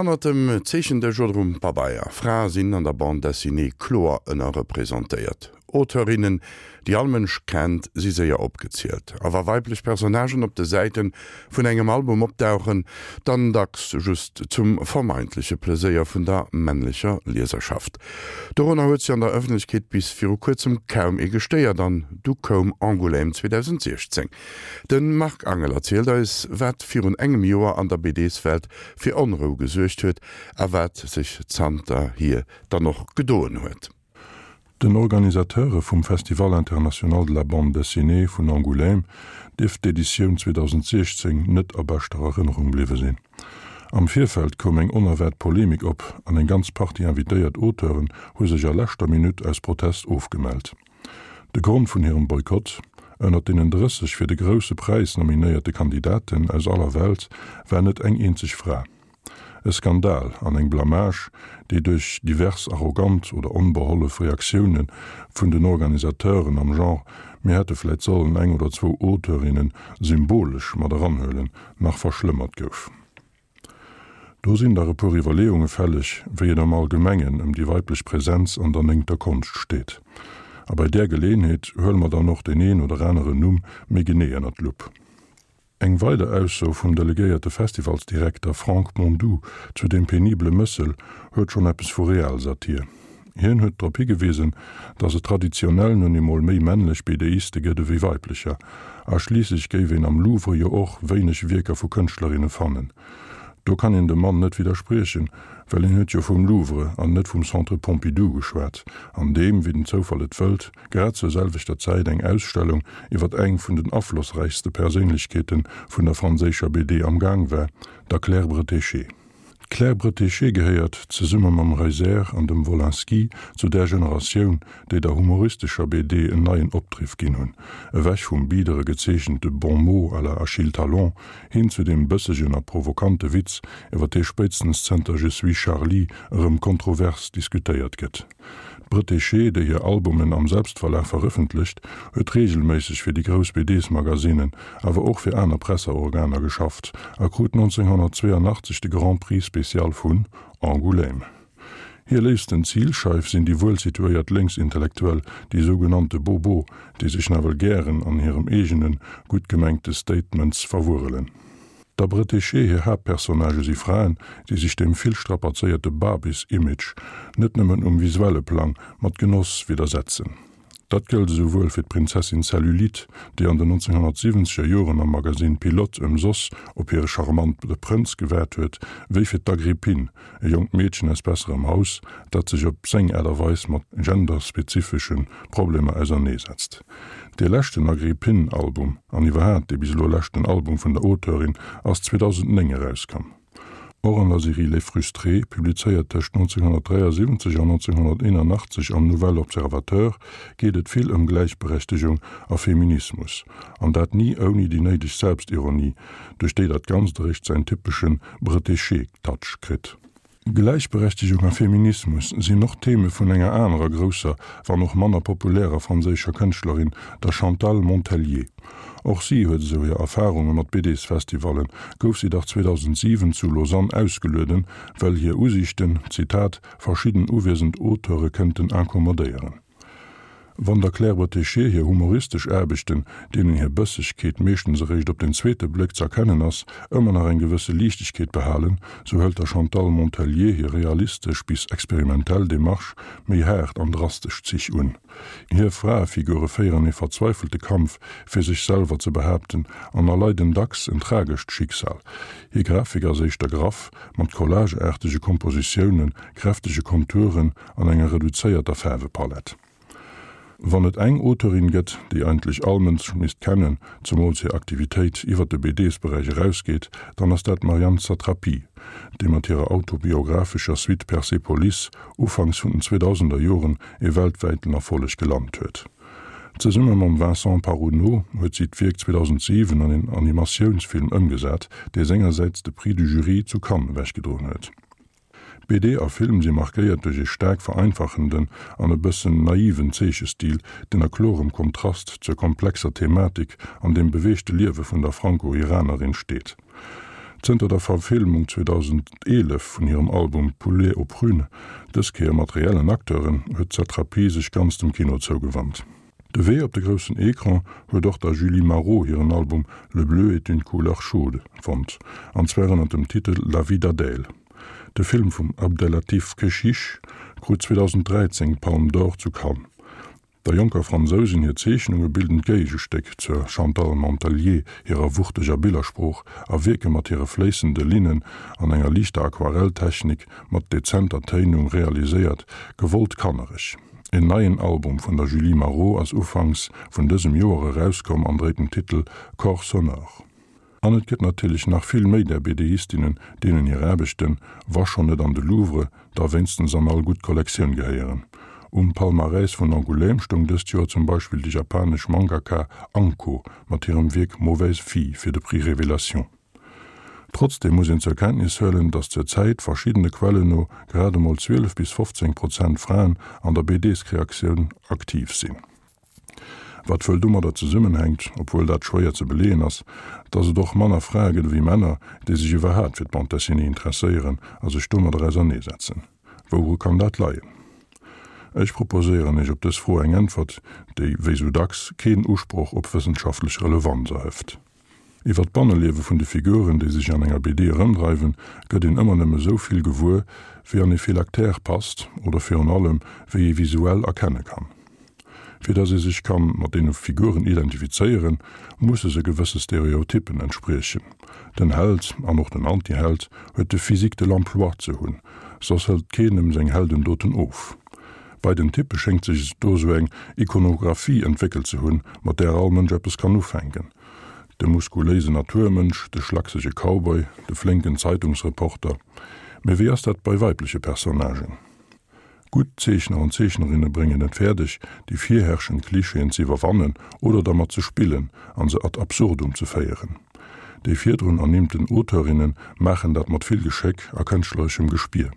Hannert dem Zeechendësch oder um Pabeier, Frae sinn an der Bande Dessinée kloer ënnerrepresentéiert. Auteurinnen, déi all Mënsch kennt, si séier opgezielt. A wa weiblech Personnagen op de Säite vun engem Album opdauchen, dann dacks just zum vermeintleche Pleséier vun der männlecher Lieserschaft. Dorunner huet sech an der Ëffentlechkeet bis viru kuerzem kaum ee gestéiert, an du koum Angoulême 2016. De Marc Angel erzielt eis, wat virun engem Joer an der BDs-Welt fir Onrou gesuergt huet a wat sech zanterhier dann och gedoen huet. Den Organisateure vum Festival International de la Bande Dessinée vun Angoulême dierft d'Editioun 2016 net a beschter Erënnerung bliwwe sinn. Am Virfeld koum eng onerwaart Polemik op an eng ganz Partie invitéiert Auteuren hu sech a leschter Minutt aus Protest ofgemellt. De Grond vun hirem Boykott, Ënnert deenen 30 fir de Grousse Präis nominéierte Kandidaten aus aller Welt war net eng eenzeg Fra. E Skandal an eng Blamage, déi duerch divers arrogant oder onbehollef Reaktioune vun den Organisateuren am Genre mir hätte vläit sollen eng oder zwou Auteurinne symbolesch mat eranhuelen, nach verschlëmmert gouf. Do sinn dach e puer Iwwerleeunge fälleg, wéi et am Allgemengen ëm déi weiblech Präsenz an der néngter Konscht steet. A bei där Geleeënheet huele mer dann och deen een oder aneren Numm méi genee ënner d'Lupp. Eng weider Ausso vum delegéierte Festivalsdirekter Franck Mondoux zu deem penibele Mëssel huet schonn eppes vu Realsatir. Hien huet drop higewisen, datt et traditionell nun emol méi männlech BDiste gëtt ewéi weiblecher, a schliisslech géif een am Louvre jo och wéineg Wierker vu Kënschtlerinne fannen. Do kann een dem Mann net widderspriechen, well hien huet jo vum Louvre an net vum Centre Pompidou geschwat, an deem, wéi den Zoufall et wëllt, grad zur selwechter Zäit eng Ausstellung iwwer eng vun den aflossräichste Perséinlechkeete vun der franséischer BD am Gaang war, der Claire Bretéché. D'Claire Bretéché gehéiert, zesumme mam Reiser an dem Wolinski, zu där Generatioun, déi der humoristescher BD en neien Opdriff ginn hunn, ewech vum bidere gezeechente Bon mot à la Achille Talon hin zu deem bëssegen a provokante Witz, iwwer dee spéitstens zënter Je suis Charlie erëm kontrovers diskutéiert gëtt. D'Bretéché, déi hir Albumen am Selbstverlag verëffentlecht, huet reegelméisseg fir déi grouss BDs-Magasinen, awer och fir aner Presseorganer geschafft a krut 1982 de Grand Prix spécial vun Angoulême. Hir léifsten Zilscheif sinn déi wuelsituéiert Lénksintellektuell, déi sougenannte Bobos, déi sech nawell gären an hirem eegenen, gutt gemengte Statements verwurrelen. Der Bretéché hir Haaptpersonnagë si Fraen, déi sech dem vill strapazéierte Barbies-Image, net nëmmen um visuelle Plang, mat Genoss widdersetzen. Dat gëllt esouwuel fir d'Prinzessin Cellulite, déi an den 1970er Joren am Magasinn Pilote ëmsoss op hire charmante Prënz gewaart huet, wéi fir d'Agrippine, e jonkt Meedchen aus besserem Haus, dat sech op seng Aart a Weis mat genderspezifesche Problemer auserneesetzt. Dee leschten Agrippine-Album, an iwwerhaat dee bis elo leschten Album vun der Auteurin, ass 2009 erauskomm. Och an der Serie Les Frustrés, publizéiert tëscht 1973 an 1981 am Nouvel Observateur, geet et vill ëm Gläichberechtegung a Feminismus, an dat ni ouni déi néideg Selbstironie, duerch déi dat Ganzt eréischt säin typesche Bretéché-Touch kritt. Gläichberechtegung a Feminismus sinn och Theme vun enger anerer grousser, wann och manner populärer franséischer Kënschtlerin, der Chantal Montellier. Och si huet esou hir Erfarunge mat BDs-Festivallen, gouf si dach 2007 zu Lausanne ausgelueden, well hir Usiichten, Zitat, verschidden uwiesend Auteure kënnten incommodéieren. Wann der Claire Bretéché hir humoristesch Aarbechten, deenen hir Bëssegkeet meeschtens eréischt op den zweete Bléck z'erkennen ass, ëmmer nach eng gewësse Liichtegkeet behalen, sou hëlt der Chantal Montellier hir realistesch bis experimentell Demarche méi haart an drastesch Zich un. Hir Fraefigure féieren ee verzweifelte Kampf, fir sech selwer ze behaapten an erleiden dacks en tragescht Schicksal. Hir Grafik ass éischter graff, mat collageaartege Kompositiounen, kräftege Konturen an enger reduzéierter Faarwepalett. Wann et eng Auteurin gëtt, déi eigentlech all Mënsch misst kennen, zemools hir Aktivitéit iwwer de BDs-Beräich erausgeet, dann ass dat d'Marjane Satrapi, déi mat hirer autobiographescher Suite Persepolis ufanks vun den 2000er Joren ee weltwäiten Erfolleg gelant huet. Zesumme mam Vincent Paronnaud huet si d'Wierk 2007 an een Animatiounsfilm ëmgesat, dee sengersäits de Prix du Jury zu Cannes ewechgedroen huet. BD a Film si markéiert duerch ee staark vereinfachenden an e bëssen naiven Zeechestil, deen a klorem Kontrast zur komplexer Thematik an dem beweegte Liewe vun der Franco-Iranerin steet. Zënter der Verfilmung 2011 vun hirem Album Poulet aux prunes, dës Kéier mat reellen Acteuren, huet d'Satrapi sech ganz dem Kino zougewannt. De Wee op de groussen Ecran huet och der Julie Maroh hiren Album Le bleu est une couleur chaude fonnt, an zwar ënner dem Titel La vie d'Adèle. De Film vum Abdellatif Kechiche krut 2013 d'Palme d'Or zu Cannes. Der jonker Fransousin hir Zeechnunge bilden d'Géigestéck zur Chantal Montellier hirer wuchteger Billersprooch a wierke mat hire fléissende Linnen an enger liichter Aquarelltechnik mat dezenter Téinung realiséiert, gewollt kannereg. En neien Album vun der Julie Maroh ass ufanks vun dësem Joer erauskomm an dréit den Titel Corps sonore. An et gëtt natierlech nach vill méi där BDistinnen, deenen hir Aarbechten, wa schonn net an de Louvre, da wéinstens an all gutt Kollektioun gehéieren. Um Palmarès vun Angoulême stoung dëst Joer zum Beispill déi japanesch Mangaka Anko mat hirem Wierk Mauvaise fille fir de Prix Révélation. Trotzdeem muss een zur Kenntnis huelen, datt zur Zäit, verschiddene Quellen no, grad emol 12 bis 15 Prozent Fraen an der BDs-Kreaktioun aktiv sinn. Wat wuel domadder zesummenhänkt, obwuel dat schwéier ze beleeën ass, datt et och manner Frae gëtt ewéi Männer, déi sech iwwerhaapt fir d'Bande dessinée interesséieren a sech domadder auserneesetzen. Wouru kann dat leien? Ech proposéieren Iech op dës Fro eng Äntwert, déi, wéi sou dacks, keen Usproch op wëssenschaftlech Relevanz erhëft. Iwwer d'Banneliewe vun de Figuren, déi sech an enger BD erëmdreiwen, gëtt een ëmmer nëmme sou vill gewuer, wéi an ee Phylactère passt oder virun allem, wéi ee visuell erkenne kann. Fir datt ee sech kann mat deene Figuren identifizéieren, musse se gewësse Stereotyppen entspriechen. Den Held, an och den Antiheld, huet de Physique de l'emploi ze hunn, soss hëlt keen em seng Heldendoten of. Bei den Typpe schéngt sech do sou eng Ikonographie entwéckelt ze hunn, mat där all Mënsch eppes kann ufänken. De muskuléisen Naturmënsch, de schlaksege Cowboy, de flénken Zeitungsreporter. Mee wéi ass dat bei weibleche Personnagen? Gutt Zeechner an Zeechnerinne bréngen et fäerdeg, déi virherrschend Klischeeën ze iwwerwannen oder dermat ze spillen an se ad absurdum ze féieren. Déi virdrun ernimmten Auteurinne maachen dat mat vill Geschéck a kënschtlereschem Gespier.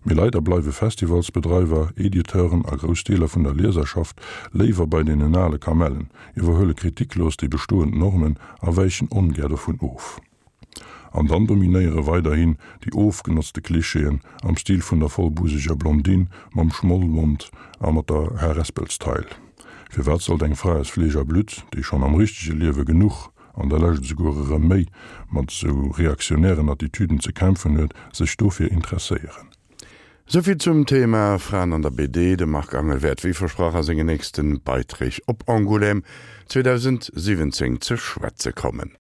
Mee leider bleiwe Festivalsbedreiwer, Editeuren a grouss Deeler vun der Lieserschaft léiwer bei deenen ale Kamellen, iwwerhuele kritiklos déi bestoend Normen a wäichen ongär dovun of. An dann dominéiere weiderhin déi ofgenotzte Klischeeën am Stil vun der vollbuseger Blondine mam Schmollmond a mat der Harespelstail. Firwat sollt eng Fra aus Fleesch a Blutt, déi schonn am richtege Liewe genuch an der Lescht esouguer erëm méi mat esou reaktionären Attitüden ze kämpfen huet, sech dofir interesséieren. Souvill zum Thema Fraen an der BD. De Marc Angel wäert wéi versprach a sengen nächsten Beiträg op Angoulême 2017 ze schwätze kommen.